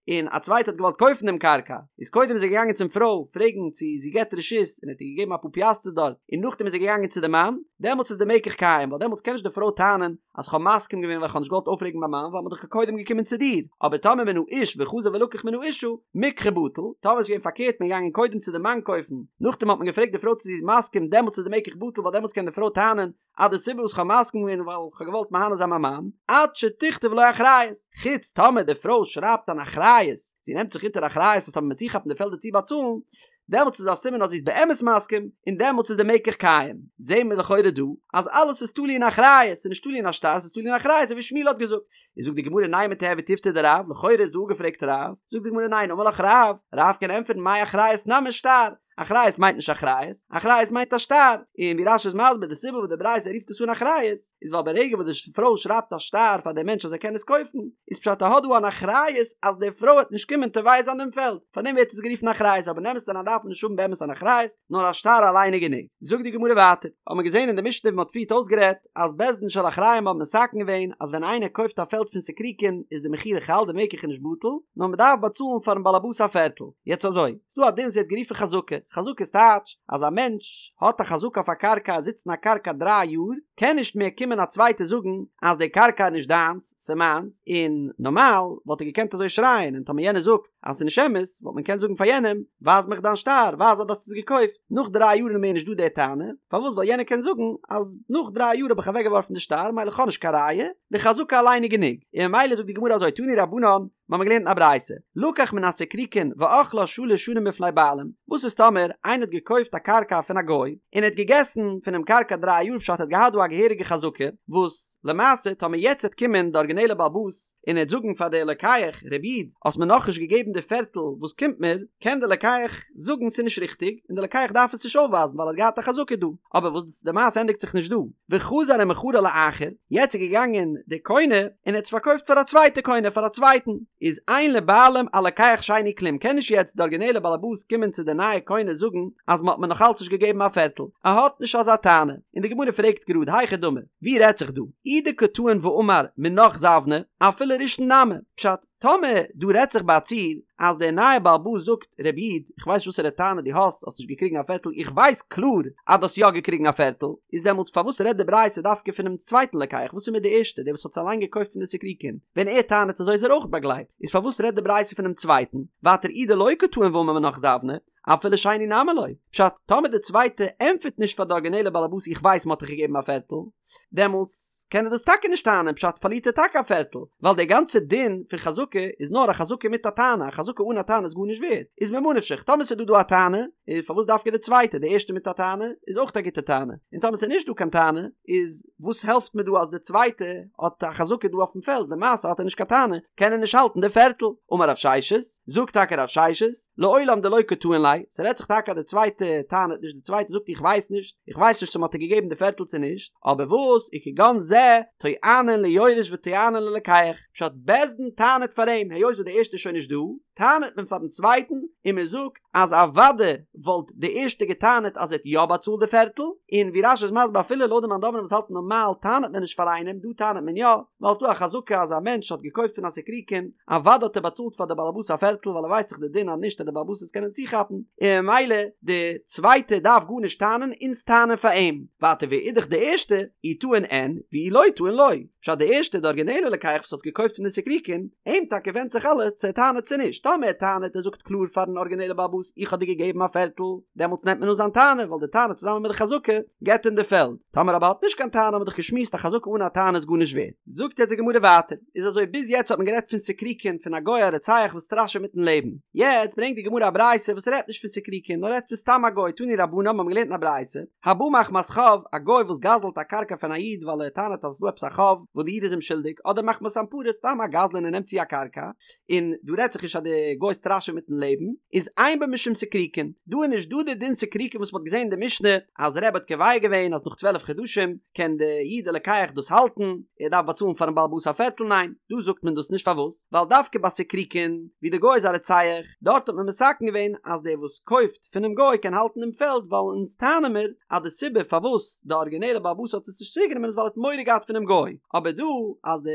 און א צווייטער האט געוואלט קויפן דעם קרקע, איז קודם איז ער געגאנגען צום פרוי פרעגן צו זי געבט רשות און ער האט איר געגעבן אפאר פיאסטערס דארט, און נאכדעם איז ער געגאנגען צו די מאן, דעמאלטס איז די מקח קיים, ווייל דעמאלטס קען נישט די פרוי טענה'ן אז כ'האב מסכים געווען ווייל כ'האב נישט געוואלט אויפרעגן מיין מאן ווייל מ'איז דאך קודם געקומען צו דיר, אבער טאמער מן האיש וחזר ולקח מן האשה, מקחו בטל, טאמער איז געווען פארקערט מ'איז געגאנגען קודם צו די מאן קויפן, נאכדעם האט מען געפרעגט די פרוי צו זי איז מסכים דעמאלטס איז די מקח בטל ווייל דעמאלטס קען די פרוי טענה'ן אז די סיבה וואס כ'האב מסכים געווען איז ווייל כ'האב געוואלט מהנה זיין מיין מאן, עד שתכתוב לו אחריות, חוץ טאמער די פרוי שרייבט אן אחריות, זי נעמט זיך אונטער אחריות אז טאמער מ'וועט צוכאפן די פעלדער צו באצאלן, דעמאלטס איז א סימן אז זי איז באמת מסכים, און דעמאלטס איז די מקח קיים. זעהן מיר לכאורה דא אז אלעס איז תלוי אין אחריות, ס'איז נישט תלוי אין א שטר, ס'איז תלוי אין אחריות אזוי ווי שמואל האט געזאגט. איז זאגט די גמרא נימא תיהוי תיובתא דרב, לכאורה איז דא אפגעפרעגט רב, זאגט די גמרא ניין אמר לך רב, רב קען ענטפערן מאי אחריות נמי שטר, אחריות מיינט נישט אחריות, אחריות מיינט א שטר, און ווי רש"י איז מסביר די סיבה וואס די ברייתא רופט עס אן אחריות, איז ווייל ברגע וואס די פרוי שרייבט א שטר פאר דעם מענטש אז ער קען עס קויפן, איז פשט ער האט דא אן אחריות אז די פרוי וועט נישט קומען תובע זיין דעם פעלד, פארדעם ווערט עס גערופן אחריות, אבער אין אמת'ן דארף מען נישט האבן באמת אן אחריות, נאר א שטר אליין איז גענוג. זאגט די גמרא ווייטער, האט מען געזען אין די משנה ווי מען האט פריערט אויסגערעדט, אז בית דין של אחריים האבן מתקן געווען אז ווען איינער קויפט א פעלד פון סיקריקין איז די מכירה חל די מקח איז נישט בטל נאר מען דארף באצאלן פארן באלעבאס א פערטל. יעצט אזוי, ס'דא א דין וואס ווערט גערופן חזקה, חזקה איז טייטש אז א מענטש האט א חזקה אויף א קרקע ער זיצט אין א קרקע דריי יאר קען נישט מער קומען א צווייטער זאגן אז די קרקע איז נישט דיינס ס'איז מיינס און נארמאל וואלט ער געקענט אזוי שרייען און טאמער יענער זאגט אז ס'איז נישט אמת, וואלט מען געקענט זאגן פאר יענעם, ווייז מיך דיין שטר, ווייז אז דו האסט עס געקויפט. נאך דריי יאר איז מער נישט דא די טענה, פארוואס? ווייל יענער קען זאגן אז נאך דריי יאר האב איך אוועקגעווארפן די שטר, מילא כ'האב נישט קיין ראיה, די חזקה אליין איז גענוג. און ממילא זאגט די גמרא אזוי, תנו רבנן, מיר האבן געלערנט אין א ברייתא, לקח מן הסיקריקין ואכלה שלש שנים בפני בעלים, וואס איז טאמער איינער האט געקויפט א קרקע פון א גוי, און ער האט געגעסן פונעם קרקע דריי יאר פשט ער האט געהאט דא א געהעריגע חזקה, וואס למעשה טאמער יעצט וועט קומען די ארגינעלע בעל הבית און ער וועט זאגן פאר די לוקח, רבי איד, האסט מיר נאכנישט געגעבן די פערטל וואס קומט מיר, קען די לוקח זאגן ס'איז נישט ריכטיג, און די לוקח דארף עס נישט אויפווייזן ווייל ער האט געהאט א חזקה דא. אבער וואס די מעשה ענדיגט זיך נישט דא, וחזר ומכרה לאחר, יעצט איז געגאנגען די קונה און ער האט עס פארקויפט פאר א צווייטע קונה פאר א צווייטן, איז אין לבעלים על לוקח שני כלום, קען נישט יעצט די ארגינעלע בעל הבית קומען צו די נייע קונה זאגן אז מ'האט מיר נאכאלץ נישט געגעבן א פערטל, ער האט נישט אזא טענה, און די גמרא פרעגט גראד היכי דמי, ווי רעדט זיך דא? אי דקא טעין ואמר מינך זבנה, אפילו ראשון נמי, פשט, טאמער דא רעדט זיך ביי א ציור אז דער נייער בעל הבית זאגט רבי איד איך ווייס נישט וואסערע טענה דו האסט האסט נישט געקריגן א פערטל איך ווייס קלאר אז דו האסט יא געקריגן א פערטל איז דעמאלטס פארוואס רעדט די ברייתא דווקא פונעם צווייטן לוקח וואס איז מיט די ערשטע דער וואס האט עס אליין געקויפט פון די סיקריקין ווען ער טענה'ט אזוי איז ער אויך באגלייבט איז פארוואס רעדט די ברייתא פונעם צווייטן ווייטער אי דלא קא טעין ואמר מינך זבנה אפילו שני נמי לא. פשט, טאמער די צווייטע ענטפערט נישט פאר די ארגינעלע באלעבאס איך ווייס מ'האט דיך געגעבן א פערטל, דעמאלטס קען ער דאס טאקע נישט טענה'ן, פשט פארלירט ער טאקע א פערטל, ווייל די גאנצע דין פון חזקה איז נאר א חזקה מיט א טענה, א חזקה אן א טענה איז גארנישט ווערד, איז ממה נפשך, טאמער ס'איז דא דא א טענה, איז פארוואס דווקא די צווייטע, די ערשטע מיט א טענה איז אויך א גוטע טענה, און טאמער ס'איז נישט דא קיין טענה, איז וואס העלפט מיר דא אז די צווייטע האט א חזקה דא אויפן פעלד, למעשה האט ער נישט קיין טענה, קען ער נישט האלטן די פערטל. אמר רב ששת, זאגט טאקע רב ששת, לעולם דלא קא טעין ליה, ס'רעדט זיך טאקע אז די צווייטע טענה'ט נישט, די צווייטע זאגט איך ווייס נישט, איך ווייס נישט צו מ'האט איר געגעבן די פערטל צו נישט, אבער וואס, וכגון זה, טוענין ליורש וטוענין ללוקח, פשט בית דין טענה'ט פאר אים, היות וואס די ערשטע איז שוין נישט דא, טענה'ט מען פארן צווייטן, און מ'זאגט אז אוודאי וואלט די ערשטע געטענה'ט אז ער האט יא באצאלט די פערטל, און ווי רש"י איז מסביר אפילו לויט די מאן דאמרים וואס האלטן נארמאל טענה'ט מען נישט פאר איינעם, דא טענה'ט מען יא, ווייל ס'דא א חזקה אז א מענטש האט געקויפט פון א סיקריקין, אוודאי האט ער באצאלט פאר די באלעבאס א פערטל ווייל ער ווייסט דאך די דין אז נישט וועט די באלעבאס עס קענען צוכאפן, און ממילא די צווייטע דארף גארנישט טענה'ן אונז טענה'ן פאר אים. ווייטער ואידך די ערשטע, אי טעין אין, ואי לא טעין לא. פשט די ערשטע די ארגינעלע לוקח וואס האט געקויפט פון די סיקריקין, אים טאקע ווענדט זיך אלעס צו ער טענה'ט צו נישט, טאמער ער טענה'ט ער זאגט קלאר פארן ארגינעלע באלעבאס איך האב דיר געגעבן א פערטל, דעמאלטס נעמט מען אן זיין טענה ווייל די טענה צוזאמען מיט די חזקה געבט אים די פעלד. טאמער אבער האט נישט קיין טענה האט מען דאך געשמועסט א חזקה אן א טענה איז גארנישט ווערד. זאגט יעצט די גמרא ווייטער, איז אזוי ביז יעצט האט מען גערעדט פון סיקריקין פון א גוי א רוצח וואס סטראשעט מיטן לעבן, יעצט ברענגט די גמרא א ברייתא וואס רעדט נישט פון סיקריקין נאר רעדט פון סתם א גוי, תנו רבנן מיר האבן געלערנט אין א ברייתא, הבא מחמת חוב, א גוי וואס גזל'ט א קרקע פון א איד ווייל ער טענה'ט אז עס איז דא עפעס א חוב וואס די איד איז אים שולדיג, אדער מחמת אנפרה סתם א גזלן און נעמט צו א קרקע, און דא רעדט זיך נישט אז די גוי סטראשעט מיטן לעבן, איז אין בו משום סיקריקין, דא איז נישט דא די דין סיקריקין וואס מ'האט געזען אין די משנה אז רבי האט קובע געווען אז נאך 12 חדשים קען די איד די לוקח דאס האלטן, ער דארף באצאלן פארן בעל הבית א פערטל, ניין, דא זאגט מען דאס נישט פארוואס? ווייל דווקא ביי סיקריקין ווי די גוי איז א רוצח, דארט האט מען מתקן געווען אז דער וואס קויפט פונעם גוי קען האלטן דעם פעלד ווייל אונז טענה'ן מיר אז די סיבה פארוואס די ארגינעלע בעל הבית האט עס נישט צוריק גענומען איז ווייל ער האט מורא געהאט פונעם גוי, אבער. אבער דא אז די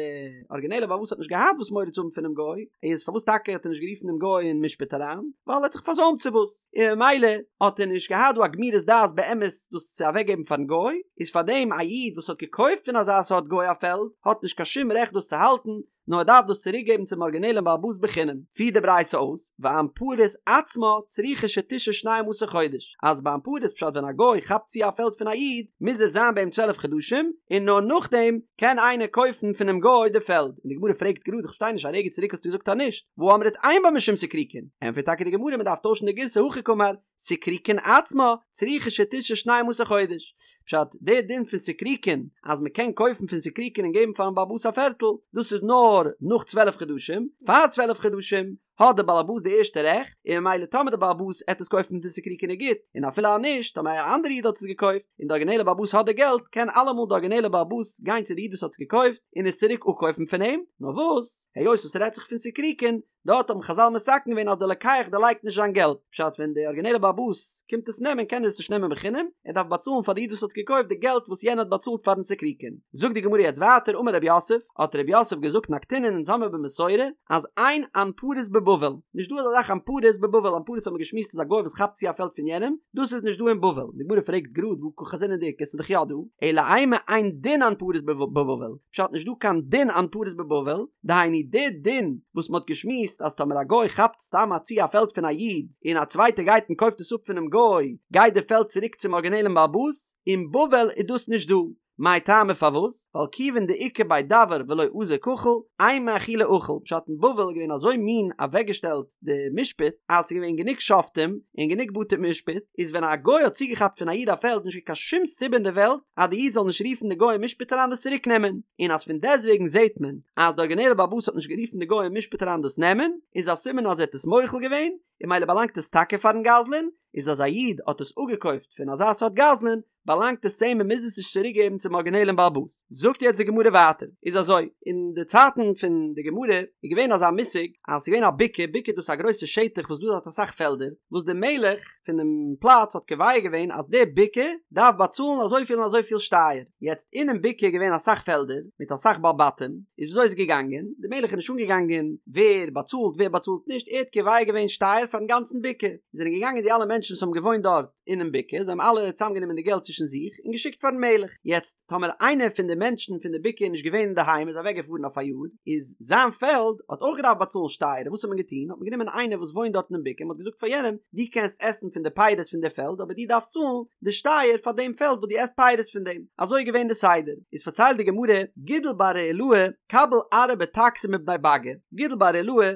ארגינעלע בעל הבית האט נישט געהאט וואס מורא צו האבן פונעם גוי, איז פארוואס טאקע האט ער נישט גערופן דעם גוי אין משפט אריין? ווייל ער האט זיך פארזוימט צו וואס, און ממילא האט ער נישט געהאט דא א גמירות דעת באמת דאס צו אוועקגעבן פארן גוי, איז פארדעם א איד וואס האט געקויפט פון אזא סארט גוי א פעלד האט נישט קיין שום רעכט דאס צו האלטן, נאר ער דארף דאס צוריק געבן צום ארגינעלען בעל הבית בחינם, פירט די ברייתא אויס, ואנפרית עצמה צריכה שתשהא שנים עשר חודש, אז ביי אנפרית פשט ווען א גוי כאפט צו א פעלד פון א איד מוז ער זיין ביי אים צוועלף חדשים, און נאר נאכדעם קען איינער קויפן פונעם גוי די פעלד, און די גמרא פרעגט גראד איך פארשטיי נישט א רגע צוריק האסטו געזאגט אז נישט, והא אמרת אין בה משום סיקריקון, ענטפערט טאקע די גמרא מען דארף טוישן די גירסא הכי קאמר, סיקריקון עצמה צריכה שתשהא שנים עשר חודש, פשט, דער דין פון סיקריקון אז מען קען קויפן פון סיקריקון און געבן פארן בעל הבית א פערטל, דאס איז נאר נאך צוועלף חדשים, פאר צוועלף חדשים האט דער בעל הבית די ערשטע רעכט, און ממילא טאמער דער בעל הבית עט עס קויפן פון סיקריקון איז גוט, און אפילו אז נישט, טאמער א אנדערע איד האט עס געקויפט, און די ארגינעלע בעל הבית האט די געלט, קען אלעמאל די ארגינעלע בעל הבית גיין צו די איד וואס האט עס געקויפט און עס צוריק אפקויפן פון אים, נאר וואס, היות עס רעדט זיך פון סיקריקון, דארט האבן חזל מתקן געווען אז דער לוקח דערלייגט נישט זיין געלט, פשט ווען דער ארגינעלער בעל הבית קומט עס נעמען קען ער עס נישט נעמען בחינם, ער דארף באצאלן פאר די איד וואס האט עס געקויפט די געלט וואס יענער האט באצאלט פארן סיקריקון. זאגט די גמרא יעצט ווייטער אמר רב יוסף, האט רב יוסף געזאגט נקטינן אונז האמיר במסורה אז אין אנפרית בבבל, נישט דא אזא זאך אנפרית בבבל, אנפרית האט מען געשמועסט איז א גוי וואס כאפט צו א פעלד פון יענעם, דאס איז נישט דא אין בבל, די גמרא פרעגט גראד והא קא חזינן דאיכא ס'איז דאך יא דא, אלא אימא אין דין אנפרית בבבל, פשט נישט דא קיין דין אנפרית בבבל, דהיינו די דין וואס מ'האט געשמועסט אז טאמער א גוי כאפט סתם א צו א פעלד פון א איד און א צווייטער גייט און קויפט עס אפ פונעם גוי גייט די פעלד צוריק צום ארגינעלען בעל הבית, אין בבל איז דאס נישט דא, מאי טעמא פארוואס? ווייל כיוון דאיכא בי דוואר ולא אזיל קחיל, אימא אחולי אכיל, פשט אין בבל איז געווען אזוי מין אוועקגעשטעלט די משפט אז ס'איז געווען גענוג שופטים און גענוג בתי משפט, איז ווען א גוי האט צוגעכאפט פון א איד א פעלד נישט געווען קיין שום סיבה אין די וועלט אז די איד זאל נישט רופן די גוי אין משפט אריין דאס צוריק נעמען, און אז פון דעסטוועגן זעט מען אז די ארגינעלע בעל הבית האט נישט גערופן די גוי אין משפט אריין דאס נעמען, איז א סימן אז ער האט עס מוחל געווען, און ממילא באלאנגט עס טאקע פארן גזלן, איז אז א איד האט עס אפגעקויפט פון אזא סארט גזלן, באלאנגט עס צו אים מען מוז עס נישט צוריק געבן צום ארגינעלען בעל הבית. זאגט יעצט די גמרא ווייטער, איז אזוי, אין די צייטן פון די גמרא איז געווען אזא מושג אז ס'איז געווען א בקעה, בקעה דאס איז א גרויסע שטח וואס דא האט אסאך פעלדער, וואס די מלך פונעם פלאץ האט קובע געווען אז די בקעה דארף באצאלן אזויפיל און אזויפיל שטייער, יעצט אינעם בקעה איז געווען אסאך פעלדער מיט אסאך בעלי בתים, איז וויאזוי איז געגאנגען, די מלך איז נישט אנגעגאנגען ווער באצאלט ווער באצאלט נישט, ער האט קובע געווען שטייער פארן גאנצן בקעה, זענען געגאנגען די אלע מענטשן וואס האבן געוואוינט דארט, אינעם בקעה, זיי האבן אלע צוזאמגענומען די געלט צווישן זיך און געשיקט פארן מלך. יעצט, טאמער איינער פון די מענטשן פון די בקעה איז נישט געווען אינדערהיים, איז אוועקגעפארן אויף א יאר, איז זיין פעלד האט אויך געדארפט באצאלן שטייער, וואס האט מען געטון? האט מען גענומען איינער וואס וואוינט דארט אינעם בקעה, מען האט געזאגט פאר יענעם, דו קענסט עסן פון די פירות פון די פעלד, אבער דו דארפסט צאלן די שטייער פאר דעם פעלד וואס דו עסט פירות פון דעם. אזוי איז געווען די סדר. איז פארציילט די גמרא, גידל בר רעילאי קביל ארעא בטקסי מבני באגא, גידל בר רעילאי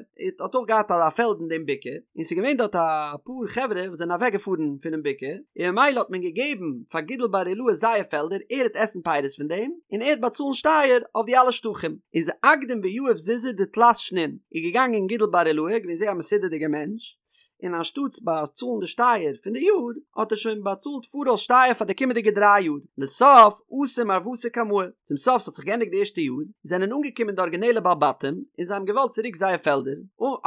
האט אויך געהאט א פעלד אין דעם בקעה, און ס'איז געווען דארט אפאר חברה וואס זענען אוועק געפארן פונעם בקעה, און ממילא האט מען געגעבן פאר גידל בר רעילאי זייער פעלדער, ער העט עסן פירות פון דעם, און ער העט באצאלן שטייער אויף די אלע שטחים. איז אקדים ויהיב זוזי דתלת שנין, איז געגאנגען גידל בר רעילאי, געווען זייער א מסודר'דיגער מענטש, און אנשטאטס באצאלן די שטייער פון די יאר האט ער שוין באצאלט פאראויס שטייער פאר די קומענדיגע דריי יאר, לסוף אתו מרוותא קמאי, צום סוף ס'האט זיך געענדיגט די ערשטע יאר, זענען אנגעקומען די ארגינעלע בעלי בתים און זיי האבן געוואלט צוריק זייער פעלדער,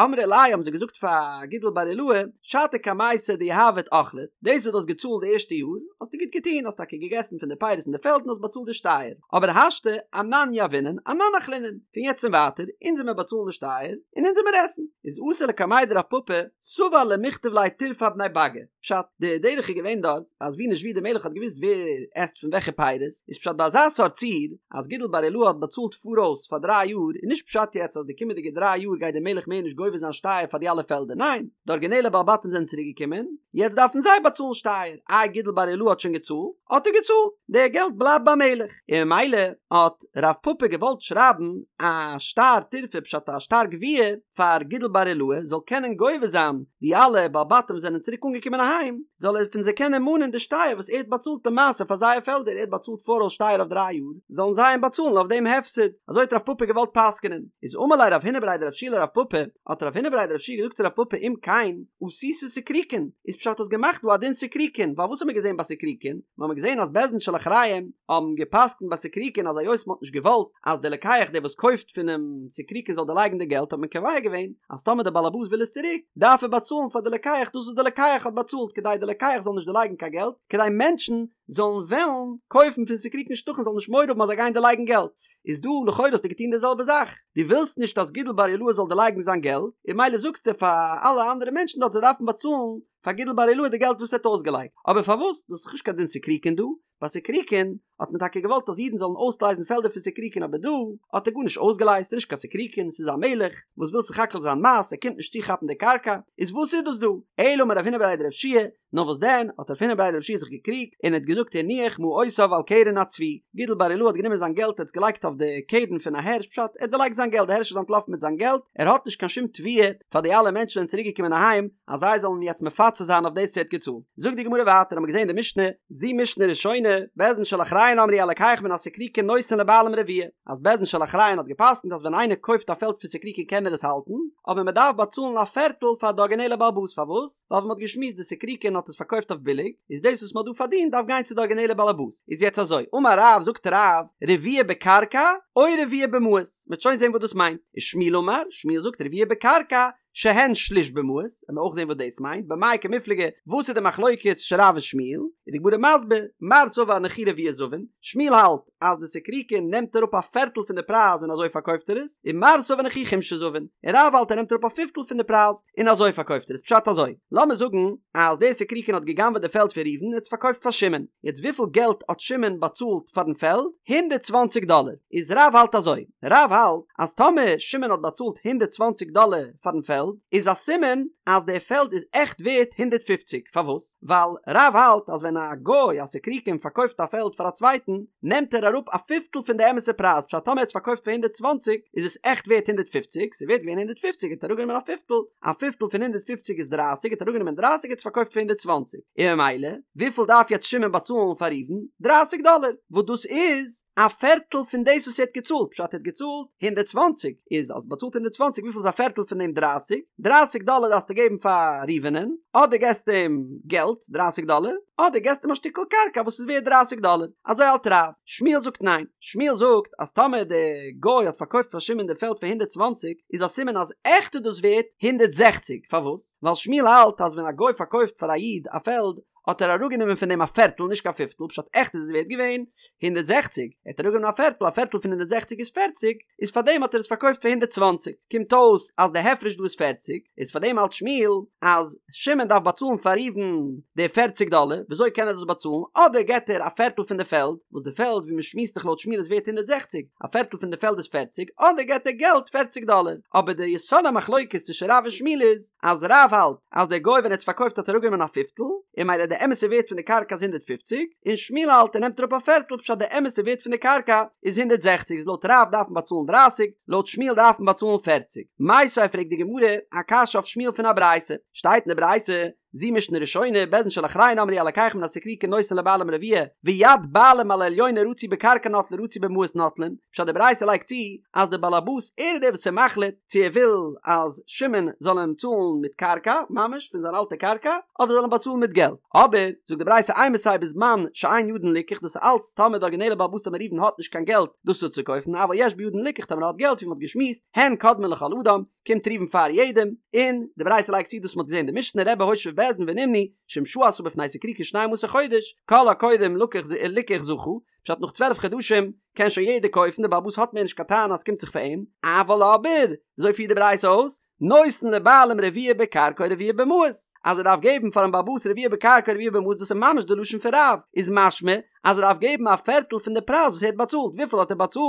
אמרי ליה האבן זיי געזאגט פאר גידל בר רעילאי, שעתא קמייתא דיהבת אכלת, דאס וואס דו האסט געצאלט די ערשטע יאר, האסטו גוט געטון, האסט טאקע געגעסן פון די פירות אין די פעלד און האסט באצאלט די שטייער, אבער השתא אנן יהבינן אנן אכלינן, פון יעצט און ווייטער, אונז עמיר באצאלן די שטייער, און אונז עמיר עסן. איז אתא לקמיה דרב פפא, סבר למיכתב ליה טירפא אבני באגא, פשט, די דרך איז געווען דארט, אז ווי נישט ווי די מלך האט געוואוסט ווער עסט פון וועלכע פירות, איז פשט ביי אזא סארט ציור, אז גידל בר רעילאי האט באצאלט פאראויס פאר דריי יאר, איז נישט פשט יעצט אז די קומענדיגע דריי יאר גייט די מלך מער נישט גובה זיין שטייער פאר די אלע פעלדער, ניין, די ארגינעלע בעלי בתים זענען צוריק געקומען, יעצט דארפן זיי באצאלן שטייער, איי גידל בר רעילאי האט שוין געצאלט, האט ער געצאלט, די געלט בלייבט ביים מלך, און ממילא האט רב פפא געוואלט שרייבן א שטר טירפא פשט א שטר גביה פאר גידל בר רעילאי זאל קענען גובה זיין די אלע בעלי בתים זענען צוריק אנגעקומען אהיים זאל ער פון זיי קענען מאנען די שטייער וואס ער האט באצאלט למעשה פאר זייער פעלדער ער האט באצאלט פאראויס שטייער אויף דריי יאר זאלן זיי אים באצאלן אויף דעם הפסד אזוי האט רב פפא געוואלט פסק'נען איז אמר ליה רב הונא בריה דרב יהושע לרב פפא האט רב הונא בריה דרב יהושע געזאגט צו רב פפא אם כן עשית סיקריקון איז פשט האסט געמאכט דא א דין סיקריקון ווייל וואס האט מען געזען ביי סיקריקון מיר האבן געזען אז בית דין של אחריהם האבן געפסקנט ביי סיקריקון אז היות מ'האט נישט געוואלט אז דער לוקח דער וואס קויפט פונעם סיקריקון זאל דערלייגן די געלט האט מען קובע געווען אז טאמער דער בעל הבית וויל עס צוריק דארף ער באצאלן. באצאלן פאר די לוקח דאס וואס די לוקח האט באצאלט כדי די לוקח זאל נישט דערלייגן קיין געלט, כדי מענטשן זאלן וועלן קויפן פון סיקריקין שטחים זאלן נישט מורא האבן אז זיי גייען דערלייגן געלט, איז דא לכאורה האסטו געטון די זעלבע זאך, דו ווילסט נישט אז גידל בר אילעאי זאל דערלייגן זיין געלט, און ממילא זאגסטו פאר אלע אנדערע מענטשן דארט זיי דארפן באצאלן פאר גידל בר אילעאי די געלט וואס ער האט אויסגעלייגט, אבער פארוואס? דאס איז דאך נישט קיין דין סיקריקין דא, ביי סיקריקין האט מען טאקע געוואלט אז אידן זאלן אויסלייזן פעלדער פון סיקריקין אבער דא האט ער גארנישט אויסגעלייזט ס'איז נישט קיין סיקריקין ס'איז א מלך וואס וויל סך הכל זיין מס ער קומט נישט צו כאפן די קרקע איז וואס איז דאס דא? אלא אמר רב הונא בריה דרב יהושע נאר וואס דען האט רב הונא בריה דרב יהושע זיך געקריגט און ער האט געזאגט הניח מעותיו על קרן הצבי גידל בר אילעאי האט גענומען זיין געלט ער האט עס געלייגט אויף די קרן פון א הערש פשט ער האט דערלייגט זיין געלט די הערש איז אנטלאפן מיט זיין געלט ער האט נישט קיין שום תביעה פאר די אלע מענטשן זענען צוריק געקומען אהיים אז זיי זאלן אים יעצט מפצה זיין אויף דאס וואס ער האט געצאלט. זאגט די גמרא ווייטער האבן מיר געזען די משנה, זו משנה ראשונה, בית דין של אחריהן אמרו הלוקח מן הסיקריקין נותן לבעלים רביע, אז בית דין של אחריהן האט געפסקנט אז ווען איינער קויפט א פעלד פון סיקריקין קען ער עס האלטן, אבער מען דארף באצאלן א פערטל פאר די ארגינעלע בעל הבית, פארוואס? ווייל ווי מען האט געשמועסט די סיקריקין האט עס פארקויפט אויף ביליג, איז דאס וואס מען האט דא פארדינט דארף גיין צו די ארגינעלע בעל הבית. איז יעצט אזוי, אמר רב, זאגט רב, רביע בקרקע או רביע במעות, מען וועט שוין זען וואס דאס מיינט, ושמואל אמר, שמואל זאגט רביע בקרקע, שהן שליש במעות, וועלן מיר אויך זען וואס דאס מיינט, במאי קמיפלגי, וואס איז די מחלוקת צווישן רב און שמואל, איז די גמרא מסביר, מר סבר נכי רביע זבין, שמואל האלט אז די סיקריקין נעמט אראפ א פערטל פון די פרייז און אזוי פארקויפט ער עס, און מר סבר נכי חומשא זבין, און רב האלט ער נעמט אראפ א פיפטל פון די פרייז און אזוי פארקויפט ער עס, פשט אזוי, לאמיר זאגן אז דער סיקריקין האט גע'גנב'עט די פעלד פון ראובן און האט עס פארקויפט פאר שמעון, יעצט וויפיל געלט האט שמעון באצאלט פארן פעלד? 120 דאלער, איז רב האלט אזוי, רב האלט אז טאמער שמעון האט באצאלט 120 דאלער פארן פעלד איז א סימן אז דער פעלד איז עכט ווערט 150, פארוואס? ווייל רב האלט אז ווען א גוי א סיקריקין פארקויפט א פעלד פאר א צווייטן נעמט ער אראפ א פיפטל פון די אמת'ע פרייז פשט טאמער ער האט עס פארקויפט פאר 120 איז עס עכט ווערט 150 ס'איז ווערט געווען 150 האט ער אראפגענומען א פיפטל א פיפטל פון 150 איז 30 האט ער אראפגענומען 30 האט עס פארקויפט פאר 120 און ממילא וויפיל דארף יעצט שמעון באצאלן פאר ראובן? 30 דאלער וואס דאס איז א פערטל פון דאס וואס ער האט געצאלט, פשט ער האט געצאלט 120, איז אז באצאלט 120 וויפיל איז א פערטל פון דעם 30? 30 דאלער דארפסטו געבן פאר ראובנ'ען, אדער געסטו אים געלט 30 דאלער, אדער געסטו אים א שטיקל קרקע וואס איז ווערט 30 דאלער, אזוי האלט רב, שמואל זאגט ניין, שמואל זאגט אז טאמער דער גוי האט פארקויפט פאר שמעון די פעלד פאר 120 איז א סימן אז עכט איז דאס ווערט 160, פארוואס? ווייל שמואל האלט אז ווען א גוי פארקויפט פאר א איד א פעלד האט ער אראפגענומען פון דעם א פערטל נישט קיין פיפטל פשט עכט איז עס ווערט געווען 160 ער האט אראפגענומען א פערטל א פערטל פון 160 איז 40 איז פאר דעם האט ער עס פארקויפט פאר 120 קומט אויס אז די הפרש דא איז 40 איז פאר דעם האלט שמואל אז שמעון דארף באצאלן פאר ראובן די 40 דאלער וויאזוי קען ער דאס באצאלן אדער געט ער א פערטל פון די פעלד וואס די פעלד ווי מען שמועסט דאך לויט שמואל איז ווערט 160 א פערטל פון די פעלד איז 40 אדער געט ער געלט 40 דאלער אבער די יסוד המחלוקת צווישן רב און שמואל איז אז רב האלט אז דער גוי ווען ער האט עס פארקויפט האט ער אראפגענומען א פיפטל, און ממילא די אמת'ע ווערט פון די קרקע איז 150, און שמואל האלט ער נעמט אראפ א פערטל פשט די אמת'ע ווערט פון די קרקע איז 160 איז לויט רב דארף מען באצאלן 30, לויט שמואל דארף מען באצאלן 40. מיתיבי פרעגט די גמרא א קשיא אויף שמואל פון א ברייתא, שטייט אין די ברייתא, זו משנה ראשונה, בית דין של אחריהן אמרו הלוקח מן הסיקריקין נותן לבעלים רביע, ויד בעלים על העליונה רצו בקרקע נוטלין רצו במעות נוטלין, פשט די ברייתא לייגט צו אז די באלעבאס ער איז דער וואס איז מחליט צו ער וויל אז שמעון זאל אים צאלן מיט קרקע ממש פון זיין אלטע קרקע אדער זאל אים באצאלן מיט געלט אבער זאגט די ברייתא אימתי בזמן שאין בידן ליקח דאס איז אלץ טאמער די ארגינעלע בעל הבית טאמער ראובן האט נישט קיין געלט דאס אפצוקויפן אבל יש בידן ליקח טאמער ער האט געלט ווי מען האט געשמועסט הן קודמין לכל אדם קומט ראובן פאר יעדעם און די ברייתא לייגט צו דאס מען האט געזען אין די משנה רבי הושיב בית דין ונמנו שאם שהה בפני סיקריקין שנים עשר חודש כל הקודם לקח ליקח זכה פשט נאך 12 חדשים קען שוין יעדער קויפן דער בעל הבית האט מער נישט קיין טענה אז ס'קומט זיך פאר אים אבל אבער אזוי פירט די ברייתא אויס נותן לבעלים רביע בקרקע או רביע במעות אז ער דארף געבן פארן בעל הבית רביע בקרקע רביע במעות דאס איז ממש די לשון פון רב איז משמע אז ער דארף געבן א פערטל פון די פרייז וואס ער האט באצאלט וויפיל האט ער באצאלט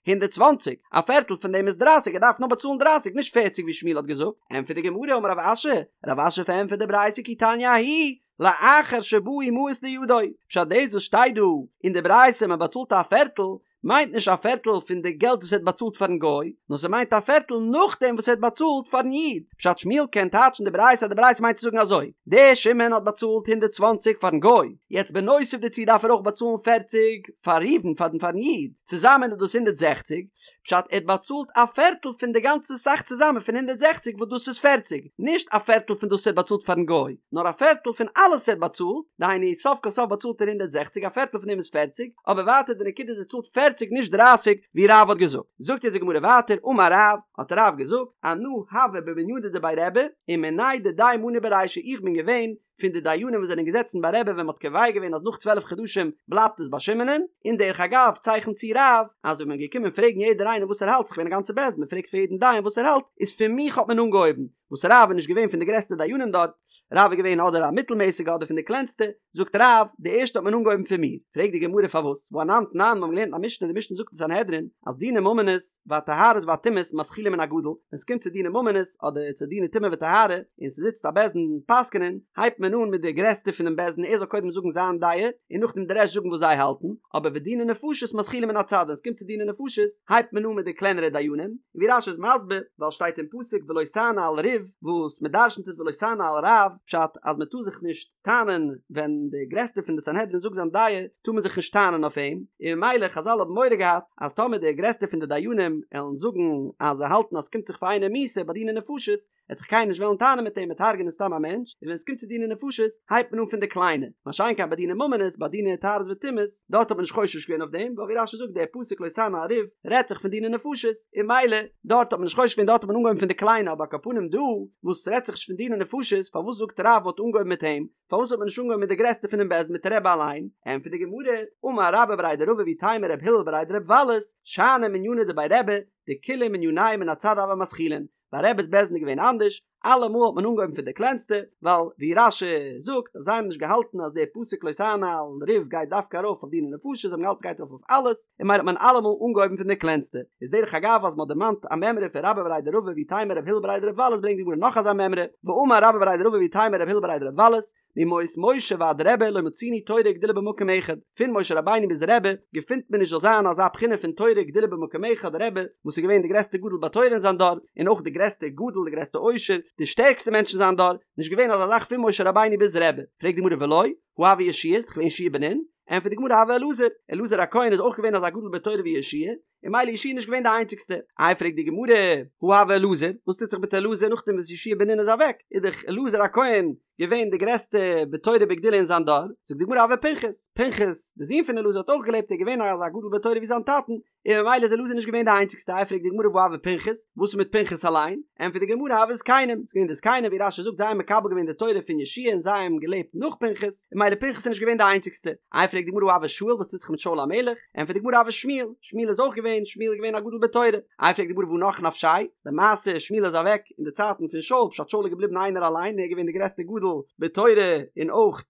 120 א פערטל פון דעם איז 30 ער דארף נאר באצאלן 30 נישט 40 ווי שמואל האט געזאגט ענטפערט די גמרא אמר רב אשי רב אשי פארענטפערט די ברייתא כי תניא ההיא לאחר שבאו מעות לידו, פשט דאס וואס שטייט דא אין די ברייתא מען באצאלט א פערטל, מיינט נישט א פערטל פון די געלט וואס ער האט באצאלט פארן גוי, נאר ס'מיינט א פערטל נאכדעם וואס ער האט באצאלט פארן איד, פשט שמואל קען טייטשן די ברייתא אז די ברייתא מיינט צו זאגן אזוי, דער שמעון האט באצאלט 120 פארן גוי, יעצט בנוסף דערצו דארף ער אויך באצאלן 40 פאר ראובן פארן פארן איד, צוזאמען איז דאס 160, פשט ער האט באצאלט א פערטל פון די גאנצע סך צוזאמען פון 160 וואס דאס איז 40, נישט א פערטל פון דאס ער האט באצאלט פארן גוי, נאר א פערטל פון אלעס ער האט באצאלט, דהיינו סוף כל סוף באצאלט ער 160 א פערטל פון דעם איז 40, אבער ווייטער די נקודה איז ער צאלט 40. פערציג נישט דרייסיג ווי רב האט געזאגט. זאגט יעצט די גמרא ווייטער אמר רב, האט רב געזאגט, אנא הוה במנינא דבי רבי ומינאי דידיה מנו ברישא איך בין געווען פון די דיינים וואס זענען געזעצן ביי רבי ווען מ'האט קובע געווען אז נאך 12 חדשים בלייבט עס ביי שמעונ'ען, און דרך אגב צייכנט צו רב אז ווען מ'איז געקומען פרעגן יעדער איינער וואס ער האלט ס'איז געווען א גאנצע בית דין מ'פרעגט פאר יעדן דיין וואס ער האלט איז פון מיך האט מען אנגעהויבן, וואס רב איז נישט געווען פון די גרעסטע דיינים דארט, רב איז געווען אדער א מיטלמעסיגע אדער פון די קלענסטע, זאגט רב, די ערשטע האט מען אנגעהויבן פון מיר, פרעגט די גמרא פארוואס, והא אנן תנן, מיר האבן געלערנט א משנה, די משנה זאגט אין סנהדרין, אז דיני ממונות, והטהרות והטומאות מתחילין מן הגדול, ווען ס'קומט צו דיני ממונות, אדער צו דיני טומאה וטהרה, און ס'זיצט א בית דין פסק'נען, הייבט מען אן מיט די גרעסטע פונעם בית דין ער זאל קודם זאגן זיין דעה, און נאכדעם די רעשט זאגן וואס זיי האלטן, אבער ודיני נפשות מתחילין מן הצד, ווען ס'קומט צו דיני נפשות, הייבט מען אן מיט די קלענערע דיינים, און ווי רש"י איז מסביר, ווייל שטייט אין פסוק ולא תענה על ריב, וואס מ'דרשנ'ט איז ולא תענה על רב, פשט אז מ'טאר זיך נישט טענה'ן ווען די גרעסטע פון די סנהדרין זאגט זיין דעה, טאר מען זיך נישט טענה'ן אויף אים, און ממילא חזל האבן מורא געהאט אז טאמער די גרעסטע פון די דיינים עלן זאגן אז זיי האלטן אז ס'קומט זיך פאר איינעם מיתה ביי דיני נפשות, עט זיך קיינער נישט וועלן טענה'ן מיט אים מ'עט הרג'ענען סתם א מענטש, און ווען עס קומט צו דיני נפשות הייבט מען אן פון די קליינע, מה שאין כן ביי דיני ממונות, ביי דיני טהרות וטומאות, דארט האט מען נישט חושש געווען אויף דעם, ווייל ווי רש"י זאגט דער פסוק לא תענה על ריב רעדט זיך פון דיני נפשות, און ממילא דארט האט מען נישט חושש געווען דארט האט מען אנגעהויבן פון די קליינע אבער על כל פנים דא וואס ס'רעדט זיך נישט פון דיני נפשות פארוואס זאגט רב מ'האט אנגעהויבן מיט אים, פארוואס האט מען נישט אנגעהויבן מיט די גרעסטע פונעם בית דין מיט רבי אליין? ענטפערט די גמרא, אמר רבה בריה דרבא ואיתימא רב הלל בריה דרב וולס, שאני מנינא דבי רבי, דכולהו מנייהו מן הצד הוו מתחילין, ביי רבי'ס בית דין איז געווען אנדערש, אלעמאל האט מען אנגעהויבן פון די קלענסטע, ווייל ווי רש"י זאגט אז זיי האבן נישט געהאלטן אז דער פסוק לא תענה על ריב גייט דווקא ארויף אויף דיני נפשות, זיי האבן געהאלטן ס'גייט ארויף אויף אלעס, און ממילא האט מען אלעמאל אנגעהויבן פון די קלענסטע. איז דרך אגב אז מ'האט דערמאנט א מימרא פון רבה בריה דרבא ואיתימא רב הלל בריה דרב וולס ברענגט די גמרא נאך אזא מימרא, ואמר רבה בריה דרבא ואיתימא רב הלל בריה דרב וולס, מימות משה ועד רבי לא מצינו תורה וגדולה במקום אחד, פון משה רבינו ביז רבי געפינט מען נישט זאל זיין אזא בחינה פון תורה וגדולה במקום אחד, רבי וואס איז געווען די גרעסטע גדול בתורה אין זיין דור, און אויך די גרעסטע גדול די גרעסטע עושר, די שטערקסטע מענטש אין זיין דור, נישט געווען אזא זאך פון משה רבינו ביז רבי, פרעגט די גמרא ולא, הא הוה יהושע, איז דאך געווען יהושע בן נון, ענטפערט די גמרא הוה אלעזר, אלעזר הכהן איז אויך געווען אזא גדול בתורה ווי יהושע, און ממילא יהושע איז נישט געווען די איינציגסטע. איי פרעגט די גמרא, הא הוה אלעזר, וואס טוט זיך מיט אלעזר נאכדעם וואס יהושע בן נון איז אוועק, איז דאך אלעזר הכהן געווען די גרעסטע בתורה ובגדולה אין זיין דור, זאגט די גמרא הוה פנחס, פנחס די זון פון אלעזר האט אויך געלעבט ער איז געווען אזא גדול בתורה ווי זיין טאטן, און ממילא איז אלעזר נישט געווען די איינציגסטע, איי פרעגט די גמרא והא הוה פנחס, וואס איז מיט פנחס אליין, ענטפערט די גמרא הוו זקנים, ס'איז געווען די זקנים ווי רש"י זאגט זיי האבן מקבל געווען די תורה פון יהושע און זיי האבן געלעבט נאך פנחס, און ממילא פנחס איז נישט געווען די איינציגסטע. איי פרעגט די גמרא הא הוה שאול וואס טוט זיך מיט שאול המלך? ענטפערט די גמרא הוה שמואל, שמואל איז אויך געווען, שמואל איז געווען א גדול בתורה. איי פרעגט די גמרא והא נח נפשיה? למעשה שמואל איז אוועק אין די צייטן פון שאול, פשט שאול איז געבליבן איינער אליין און ער איז געווען די גרעסטע גדול בתורה און אויך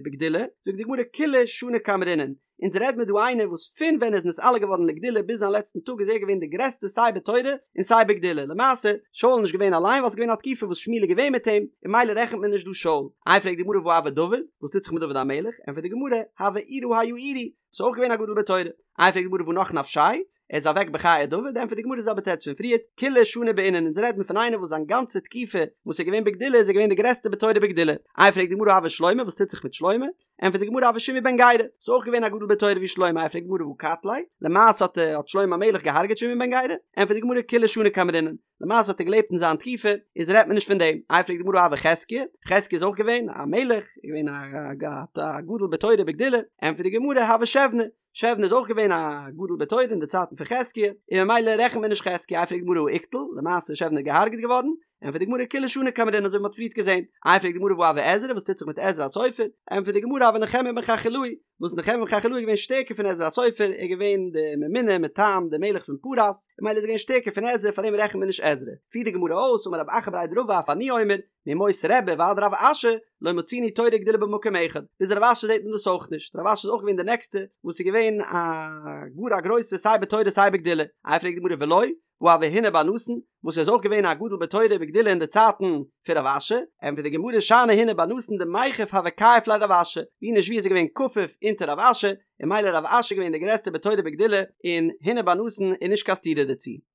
בגדולה, זאגט די גמרא כולהו שני קאמרינן, אונז רעד מיר דא איינער וואס פון ווען ער איז נתעלה געווארן לגדולה ביז זיין לעצטן טאג איז ער געווען די גרעסטע סיי בתורה און סיי בגדולה למעשה שאול איז נישט געווען אליין ווייל ס'איז געווען א תקופה וואס שמואל איז געווען מיט אים און ממילא רעכנט מען נישט דא שאול איי פרעגט די גמרא והא הוה דוד וואס טוט זיך מיט דוד המלך ענטפערט די גמרא הוה עירא היאירי וואס איז אויך געווען א גדול בתורה איי פרעגט די גמרא והא נח נפשיה ער איז אוועק בחיי דוד, ענטפערט די גמרא די זעלבע תירוץ פון פריערט, כולהו שני בעינן, אונז רעדן פון איינער וואס זיין גאנצע תקופה וואס ער איז געווען בגדולה איז ער געווען די גרעסטע בתורה ובגדולה, איי פרעגט די גמרא הוה שלמה וואס טוט זיך מיט שלמה, ענטפערט די גמרא הוה שמעי בן גרא, איז אויך געווען א גדול בתורה ווי שלמה, איי פרעגט די גמרא והא קטליה, למעשה האט האט שלמה המלך געהארגעט שמעי בן גרא, ענטפערט די גמרא כולהו שני קאמרינן, למעשה האט ער געלעבט אין זיין תקופה, איז רעדט מען נישט פון דעם, איי פרעגט די גמרא הוה חזקיה, חזקיה איז אויך געווען א מלך, געווען א גדול בתורה ובגדולה, ענטפערט די גמרא הוה שבנא, שבנא איז אויך געווען א גדול בתורה אין די צייטן פון חזקיה, און ממילא רעכנט מען נישט חזקיה, איי פרעגט די גמרא הא איקטיל, למעשה איז שבנא געהארגעט געווארן, ענטפערט די גמרא כולהו שני קאמרינן אזוי ווי מ'האט פריערט געזען, איי פרעגט די גמרא והא הוה עזרא וואס טוט זיך מיט עזרא הסופר, ענטפערט די גמרא הוה נחמיה בן חכליהו, וואס נחמיה בן חכליהו איז געווען שטערקער פון עזרא הסופר, ער איז געווען די ממונה מטעם די מלך פון פרס, און ממילא איז ער געווען שטערקער פון עזרא פארדעם רעכנט מען נישט עזרא, פירט די גמרא אויס אמר רב אחא בריה דרבא אף אני אומר, מימות רבי ועד רב אשי לא מצינו תורה וגדולה במקום אחד, ביז רב אשי זעט מען דאס אויך נישט, רב אשי איז אויך געווען די נעקסטע וואס איז געווען א גאר א גרויסע סיי בתורה סיי בגדולה, איי פרעגט די גמרא ולא, והא הוה הונא בר נתן, וואס איז אויך געווען א גדול בתורה ובגדולה אין די צייטן פון רב אשי, ענטפערט די גמרא שאני הונא בר נתן דמיכף הוה כייף ליה רב אשי, ווי נישט ווי איז ער געווען כפוף אונטער רב אשי, און ממילא רב אשי איז געווען די גרעסטע בתורה ובגדולה, און הונא בר נתן איז נישט קיין סתירה דערצו.